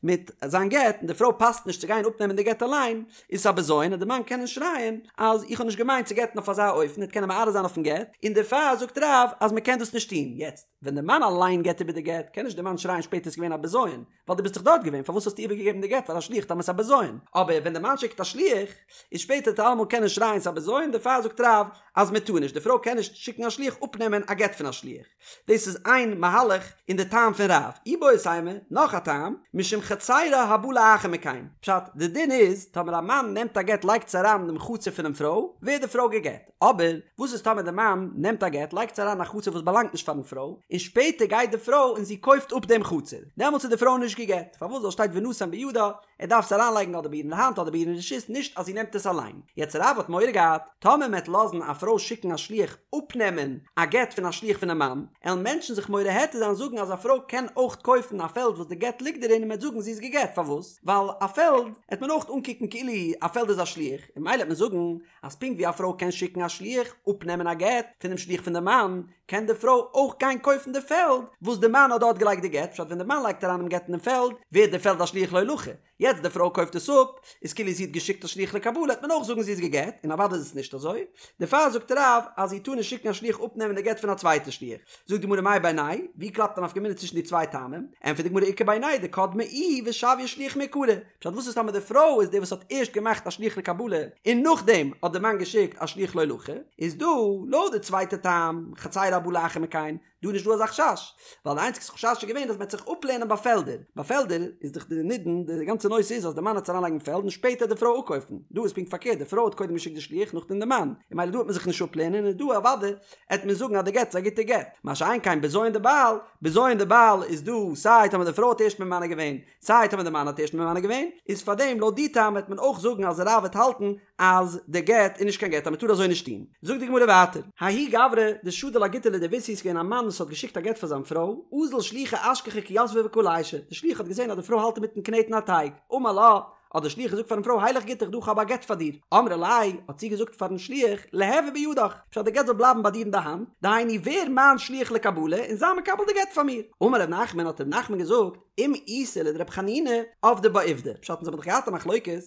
מיט זיין גט און די פרוי פאסט נישט צו גיין אפנעמען די גט אליין, איז עס א בזיון און די מאן קען שרייען אז איך האב נישט געמיינט צו גט'ן אויף אזא אופן, ער וועט קענען מערער זיין אויפן גט, און דערפאר זאגט רב אז מען קען דאס נישט טון, יעצט ווען די מאן אליין געבט איבער די גט קען נישט די מאן שרייען שפעטער ס'איז געווען א בזיון, ווייל דו ביסט דאך דארט געווען פארוואס האסטו איבערגעגעבן די גט פאר א שליח טאמער ס'איז א בזיון, אבער ווען די מאן שיקט א שליח איז שפעטער וועט ער אלעמאל קענען שרייען ס'איז א בזיון, דערפאר זאגט רב אז מען טאר נישט, די פרוי קען נישט שיקן א שליח אפנעמען א גט פון א שליח. דאס איז איין מהלך אין די טעם פון רב. איבעית אימא, נאך א טעם, משום חצירה הבאה לאחר מכן. פשט, די דין איז, טאמער א מאן נעמט א גט לייגט עס אריין אינעם חצר פונעם פרוי, ווערט די פרוי גע'גט. אבער, וואס איז טאמער די מאן נעמט א גט לייגט עס אריין אין א חצר וואס באלאנגט נישט פארן פרוי, און שפעטער גייט די פרוי און זי קויפט אפ דעם חצר. דעמאלטס איז די פרוי נישט גע'גט. פארוואס? ווייל שטייט ונתן בידה, ער דארף עס אריינלייגן אדער ביי איר אין די האנט אדער ביי איר אין רשות, נישט אז זי נעמט עס אליין. יעצט רב האט מורא געהאט, טאמער מ'עט לאזן א פרוי שיקן א שליח אפנעמען א גט פון א שליח פונעם מאן, עלן מענטשן זיך מורה היתר זיין זאגן אז א פרוי קען אויך קויפן א פעלד וואס די גט ליגט דערין און מ'עט זאגן זי איז גע'גט, פארוואס? ווייל א פעלד עט מען אויך אנקוקן כאילו א פעלד איז א שליח, און ממילא עט מען זאגן אז פונקט ווי א פרוי קען שיקן א שליח אפנעמען א גט פונעם שליח פון די מאן, קען די פרוי אויך גיין קויפן די פעלד וואס די מאן האט דארט געלייגט די גט, פשט ווען די מאן לייגט אריין דעם גט אינעם פעלד ווערט די פעלד א שליח להולכה, יעצט די פרוי קויפט עס אפ, איז כאילו זי האט געשיקט א שליח לקבלה וועט מען אויך זאגן זי איז גע'גט, און אוודאי איז עס נישט אזוי, דערפאר זאגט רב אז זי טאר נישט שיקן א שליח אפנעמען די גט פון א צווייטע שליח. זאגט די גמרא מאי בינייהו ווי קלאפט א נפקא מינה צווישן די צוויי טעמים? ענטפערט די גמרא איכא בינייהו דקדמה איהי ושויה שליח מעיקרא, פשט וואס איז טאמער די פרוי איז די וואס האט ערשט געמאכט א שליח לקבלה און נאכדעם האט די מאן געשיקט א שליח להולכה, איז דא לויט די צווייטע טעם חצירה הבאה לאחר מכן, דא איז נישט דא אזא חשש, ווייל די איינציגסטע חשש איז געווען אז מען וועט זיך אפלערנען ביי פעלדער, ביי פעלדער איז דאך די נידון, די גאנצע נושא איז אז די מאן וועט עס אריינלייגן אין פעלד און שפעטער די פרוי אפקויפן, דא איז פונקט פארקערט די פרוי האט קודם געשיקט די שליח נאכדעם די מאן, און ממילא דא וועט מען זיך נישט אפלערנען און דא אוודאי עט מען זאגן אז די גט איז א גוטע גט, מה שאין כן בזיון דבעל, בזיון דבעל איז דא סיי טאמער די פרוי האט ערשט ממנה געווען, סיי טאמער די מאן האט ערשט ממנה געווען, איז פארדעם לויט די טעם וועט מען אויך זאגן אז רב וועט האלטן אז די גט איז נישט קיין גט אז מען טאר אזוי נישט טון. זאגט די גמרא ווייטער, ההוא גברא דשדר לה גיטא לדביתהו איז געווען א מאן וואס האט געשיקט א גט פאר זיין פרוי, אזל שליחא אשכחה כי יתבה וקא לישא, די שליח האט געזען אז די פרוי האלט אינמיטן קנעטן א טייג, אמר לה, האט דער שליח געזאגט פארן פרוי הילך גיטך דא כ'האב א גט פאר דיר, אמרה ליה, האט זי געזאגט פארן שליח, ליהוי בידך, פשט די גט זאל בלייבן ביי דיר אין די האנט, דהיינו ווער מיין שליח לקבלה און זיי מקבל די גט פאר מיר. אמר ר' נחמן האט ר' נחמן געזאגט, אם איתא לדר' חנינא, עבדה בה עובדא, פשט אונז האבן דאך געהאט א מחלוקת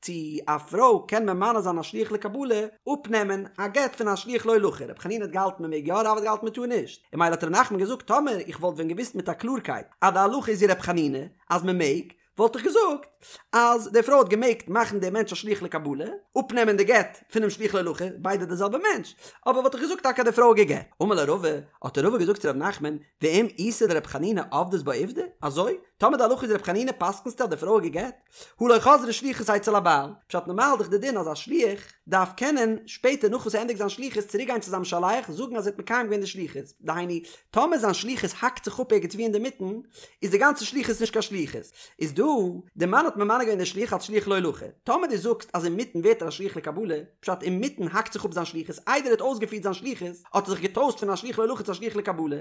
צו א פרוי קען ממנה זיין א שליח לקבלה, אפנעמען א גט פון א שליח להולכה, ר' חנינא האט געהאלטן מען מעג יא, רב האט געהאלטן מען טאר נישט, און ממילא האט ר' נחמן געזאגט טאמער איך וואלט ווען געוואוסט מיט א קלארקייט אז די הלכה איז ווי ר' חנינא אז מען מעג, וואלט איך געזאגט אז די פרוי האט געמעגט מאכן דעם מענטש א שליח לקבלה, אפנעמען די גט פונעם שליח להולכה, ביידע די זעלבע מענטש, אבער וואלט איך געזאגט טאקע אז די פרוי האט גע'גט. אמר ליה רבא, האט רבא געזאגט צו ר' נחמן, ואם איתא דר' חנינא עבדת בה עובדא, אזוי? טאמער די הלכה איז ר' חנינא פסק'נסטו אז די פרוי האט גע'גט? הא לא חזרה שליחות אצל הבעל, פשט נארמאל איז דאך די דין אז א שליח דארף קענען שפעטער נאך וואס ער ענדיגט זיין שליחות צוריק גיין צו זיין משלח זאגן אז ער האט מקיים געווען די שליחות, דהיינו טאמער זיין שליחות האקט זיך אפ ערגעץ ווי אינדערמיטן איז די גאנצע שליחות נישט קיין שליחות, איז דא די מאן האט ממנה געווען די שליח אלס שליח להולכה, טאמער דו זאגסט אז אינמיטן ווערט ער א שליח לקבלה, פשט אינמיטן האקט זיך אפ זיין שליחות איידער ער האט אויסגעפירט זיין שליחות האט ער זיך געטוישט פון א שליח להולכה צו א שליח לקבלה,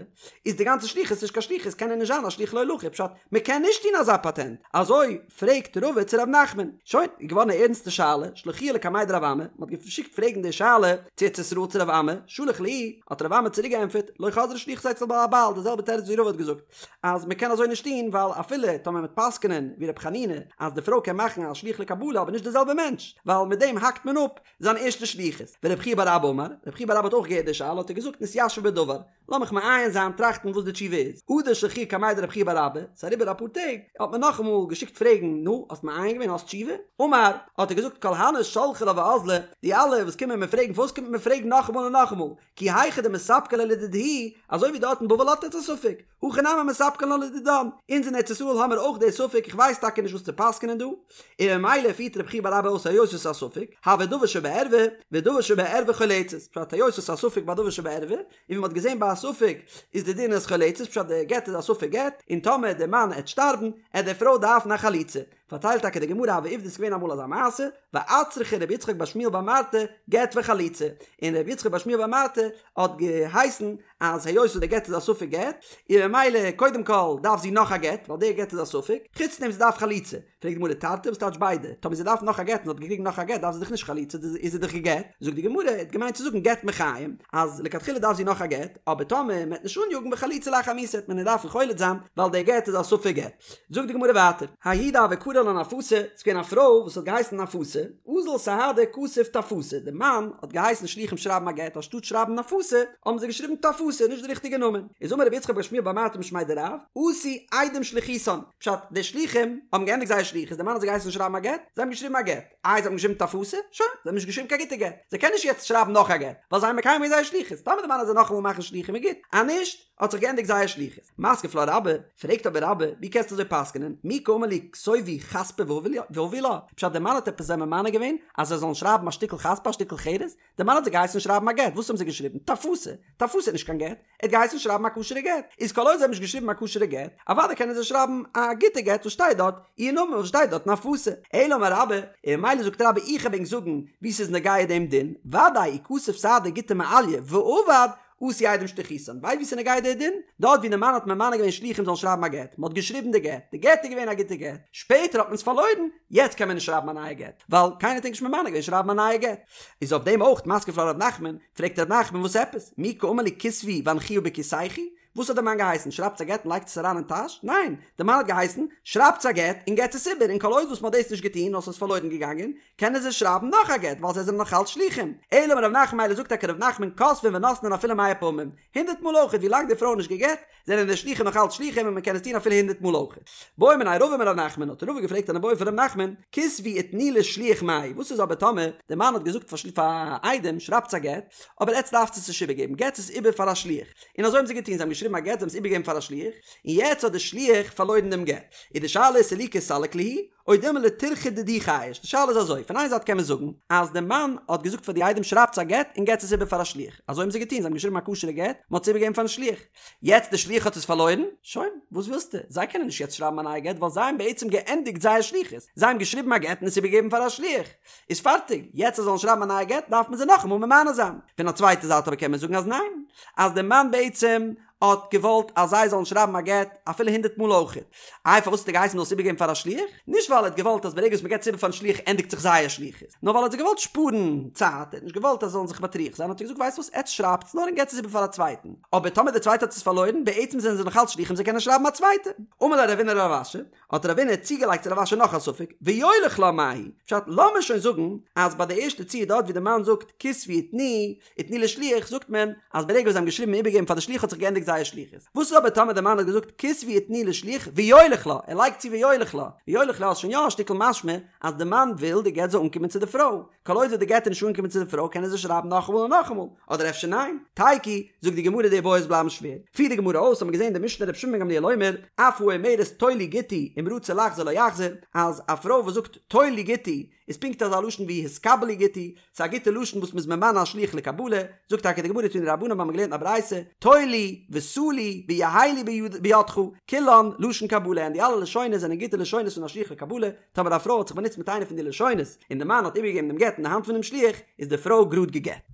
איז די גאנצע שליחות נישט קיין שליחות קען ער נישט זיין א שליח להולכה פשט מען קען נישט טון אזא פאטענט, אזוי פרעגט רבא צו ר' נחמן, שוין, איז געווארן א ערנסטע שאלה, שלחוה לקמיה דרב אמי, מען האט געשיקט פרעגן די שאלה צו ארץ ישראל צו רב אמי, שלח להו, האט רב אמי צוריק געענטפערט, לא חזרה שליחות אצל הבעל, די זעלבע תירוץ ווי רבא האט געזאגט, אז מען קען אזוי נישט טון ווייל אפילו טאמער מען וועט פסק'נען ווי ר' חנינא אז די פרוי קען מאכן א שליח לקבלה אבער נישט די זעלבע מענטש, ווייל מיט דעם האקט מען אפ זיין ערשטע שליחות. ורב חייא בר אבא אמר, רב חייא בר אבא האט אויך געהערט די שאלה האט ער געזאגט נתיישב בדבר, לאמיך מעיין זיין טראכטן וואס די תשובה איז. הדר שלחוה קמיה דרב חייא בר אבא, ס'איז אריבער אפאר טעג, האט מען נאכאמאל געשיקט פרעגן, נו, האסט מעיין געווען, האסט תשובה? אמר, האט ער געזאגט כל הני שלחי לה ואזלי, די אלע וואס קומען מיר פרעגן פארוואס קומט מען מיר פרעגן נאכאמאל און נאכאמאל, כי היכי דמספקא להו לדידהו, אזוי ווי דארט אין בבל האט עטס א ספק, הכא נמי מספקא לן לדידן, אונז אין ארץ ישראל האמיר אויך די ספק, איך ווייס. ווייסט טאקע נישט וואס צו פסק'נען דא, און ממילא פירט רבי חייא בר אבא אויס היות עס איז א ספק, הוי דבר שבערווה, ודבר שבערווה חולצת, פשט היות עס איז א ספק ביי דבר שבערווה, און ווי מ'האט געזען ביי א ספק איז די דין אז חולצת, פשט די גט איז א ספק גט, און טאמער די מאן עט שטארבן, עט די פרוי דארפן א חליצה. פארציילט טאקע די גמרא הוה עובדא ס'איז געווען אמאל אזא מעשה, ואצרכה רבי יצחק בר שמואל בר מרתא גט וחליצה, און רבי יצחק בר שמואל בר מרתא האט געהייסן אז היות וואס די גט איז א ספק גט, און ממילא קודם כל דארף זי נאך א גט, ווייל די גט איז א ספק, חוץ דעם זי דארף חליצה, פרעגט די גמרא תרתי וואס טייטש ביידע, טאמער זי דארף נאך א גט און זי האט געקריגן נאך א גט דארף זי דאך נישט חליצה איז זי דאך גע'גט, זאגט די גמרא ער האט געמיינט צו זאגן גט מחיים, אז לכתחילה דארף זי נאך א גט, אבער טאמער מען וועט נישט אניאגן וחליצה לאחר מיתה וועט מען איר דארפן חולץ זיין ווייל די גט איז א ספק גט. זאגט די גמרא ווייטער, ההיא דהוה קרי לה נפאתא, ס'איז געווען א פרוי וואס האט געהייסן נפאתא, אזל סהדא כתב טפתא, די מאן האט געהייסן שליחים שרייבן א גט אנשטאט שרייבן נפאתא האבן זיי געשריבן טפתא, נישט די ריכטיגע נאמען, איז אמר רבי יצחק בר שמואל בר מרתא משמיה דרב, עשו עדים שליחותן, פשט, די שליחים האבן געענדיגט זייער שליחות, די מאן האט זיי געהייסן שרייבן א גט, זיי האבן געשריבן א גט, איי זיי האבן געשריבן טפתא, שוין, זיי האבן נישט געשריבן קיין גוטע גט, זיי קענען נישט יעצט שרייבן נאך א גט, ווייל זיי האבן מקיים געווען זייער שליחות, טאמער די מאן וועט זיי נאכאמאל מאכן שליחים איז גוט, אז נישט, האט זיך געענדיגט זייער שליחות. מתקיף לה רבה, פרעגט אבער רבה, ווי קענסטו אזוי פסק'נען, מי קאמר להו כתובו חספא והבו לה, פשט דער מאן האט עפעס זיי ממנה געווען אז זיי זאלן שרייבן א שטיקל חספא א שטיקל חרס, דער מאן האט זיי געהייסן שרייבן א גט, וואס האבן זיי געשריבן? טפתא! טפתא איז נישט קיין גט, ער האט געהייסן שרייבן א כשר'ע גט, איז כל עוד זיי האבן נישט געשריבן א כשר'ע גט, אוודאי קענען זיי שרייבן א גוטע גט וואס שטייט דארט איר נאמען וואס שטייט דארט נפאתא. אלא אמר רבה, און ממילא זאגט רבה איך וועל ענק זאגן ווי ס'איז נוגע דעם דין, ודאי אי כתב סהדא גיטא מעליא ואבד, עשו עדים שליחותן, ווייסט ווי ס'איז נוגע דער דין? דארט ווי די מאן האט ממנה געווען שליחים זאלן שרייבן א גט, מ'האט געשריבן די גט, די גט איז געווען א גוטע גט, שפעטער האט מען עס פארלוירן, יעצט קען מען נישט שרייבן א נייע גט, ווייל קיינער האט ענק נישט ממנה געווען שרייבן א נייע גט. איז אויף דעם אויך מתקיף לה ר' נחמן, פרעגט ר' נחמן וואס עפעס? מי קאמר להו כתבו והניחוה בכיסייכו? וואס האט די מאן געהייסן? שרייבטס א גט און לייגטס עס אריין אין טאש? ניין! די מאן האט געהייסן, שרייבטס א גט און געטס עס איבער, און כל עוד וואס מ'האט דאס נישט געטון נאר ס'איז פארלוירן געגאנגען, קענען זיי שרייבן נאך א גט ווייל זיי זענען נאך אלץ שלוחים. אלא אמר ר' נחמן מילא זאגט טאקע ר' נחמן כותבין ונותנין אפילו מאה פעמים, הונדערט מאל אויכעט ווי לאנג די פרוי איז נישט גע'גט, זענען די שלוחים נאך אלץ שלוחים און מ'קען עס טון אפילו הונדערט מאל אויכעט. בעא מיניה רבא מר' נחמן, האט רבא געפרעגט אן איבעיא פון ר' נחמן, כתבו ותנו לשליח מאי, וואס איז אבער טאמער די מאן האט געזאגט פאר עדים שרייבטס א גט, אבער עטץ דארפטס עס נישט איבערגעבן, געטס עס איבער פאר א שליח. און אזוי האבן זיי געטון, זיי האבן געשריבן א גט, זיי האבן עס איבערגעגעבן פאר א שליח, און יעצט האט דער שליח פארלוירן דעם גט. איז די שאלה איז סלוקי סליק להו, או דילמא לטירחא דידהו חייש, די שאלה איז אזוי, פון איין זייט קען מען זאגן, אז דער מאן האט געזאגט פאר די עדים שרייבטס א גט און געטס עס איבער פאר א שליח, אזוי האבן זיי געטון, זיי האבן געשריבן א כשר'ע גט, מען האט עס איבערגעגעבן פארן שליח. יעצט דער שליח האט עס פארלוירן, שוין, וואס ווילסטו, זיי קענען נישט יעצט שרייבן א נייע גט ווייל זיי האבן בעצם געענדיגט זייער שליחות, זיי האבן געשריבן א גט און עס איבערגעגעבן פאר א שליח. איז פארטיג, יעצט זיי זאלן שרייבן א נייע גט דארף מען זיי נאכאמאל ממנה זיין. פון א צווייטע זייט אבער קען מען זאגן אז ניין, אז דער מאן בעצם האט געוואלט אז זיי זאלן שרייבן א גט אפילו הונדערט מאל אויכעט. איי פארוואס האט ער געהייסן מ'זאל עס איבערגעבן פאר א שליח? נישט ווייל ער האט געוואלט אז ברגע וואס מ'געבט עס איבער פארן שליח ענדיגט זיך זייער שליחות, נאר ווייל ער האט זיי געוואלט שפארן צייט, ער האט נישט געוואלט אז זיי זאלן זיך מטריח זיין האט ער געזאגט ווייסט וואס עטס שרייבטס נאר און געבטס עס איבער פאר א צווייטן, אבער טאמער דער צווייטער האט עס פארלוירן, בעצם זענען זיי נאך אלץ שליחים זיי קענען שרייבן א צווייטע. אמר ליה רבינא לרב אשי, האט רבינא צוגעלייגט צו רב אשי נאך א ספק, ויוליך לה מהו, פשט לאמיר שוין זאגן אז ביי די ערשטע ציור דארט ווי די מאן זאגט כתבו ותנו ותנו לשליח זאגט מען אז ברגע וואס זיי האבן געשריבן און איבערגעגעבן פאר די שליח האט זיך געענדיגט זייער שליחות, וואס איז אבער טאמער די מאן האט געזאגט כתבו ותנו לשליח ויוליך לה, ער לייגט צו ויוליך לה, ויוליך לה איז שוין יא א שטיקל משמע אז די מאן וויל די גט זאל אנקומען צו די פרוי, כל עוד די גט איז נישט אנגעקומען צו די פרוי קענען זיי שרייבן נאכאמאל און נאכאמאל, אדער אפשר ניין? תיקו, זאגט די גמרא די איבעיות בלייבן שווער. פירט די גמרא אויס, האט מען געזען די משנה רבי שמעון בן גמליאל אומר, אף האומרת טול לי גיטי אם רצה לחזור לא יחזור, אז א פרוי וואס זאגט טול לי גיטי איז פונקט אזא לשון ווי התקבל לי גיטי, ס'איז א גוטע לשון וואס מ'איז ממנה א שליח לקבלה, זאגט טאקע די גמרא תנו רבנן האבן מיר געלערנט א ברייתא, טול לי ושא לי ויהא לי בידך, כולן לשון קבלה, און די אלע לשונות זענען גוטע לשונות פון א שליח לקבלה, טאמער א פרוי האט זיך באנוצט מיט איינע פון די לשונות, און די מאן האט איבערגעגעבן דעם גט אין די האנט פונעם שליח, איז די פרוי גראד גע'גט.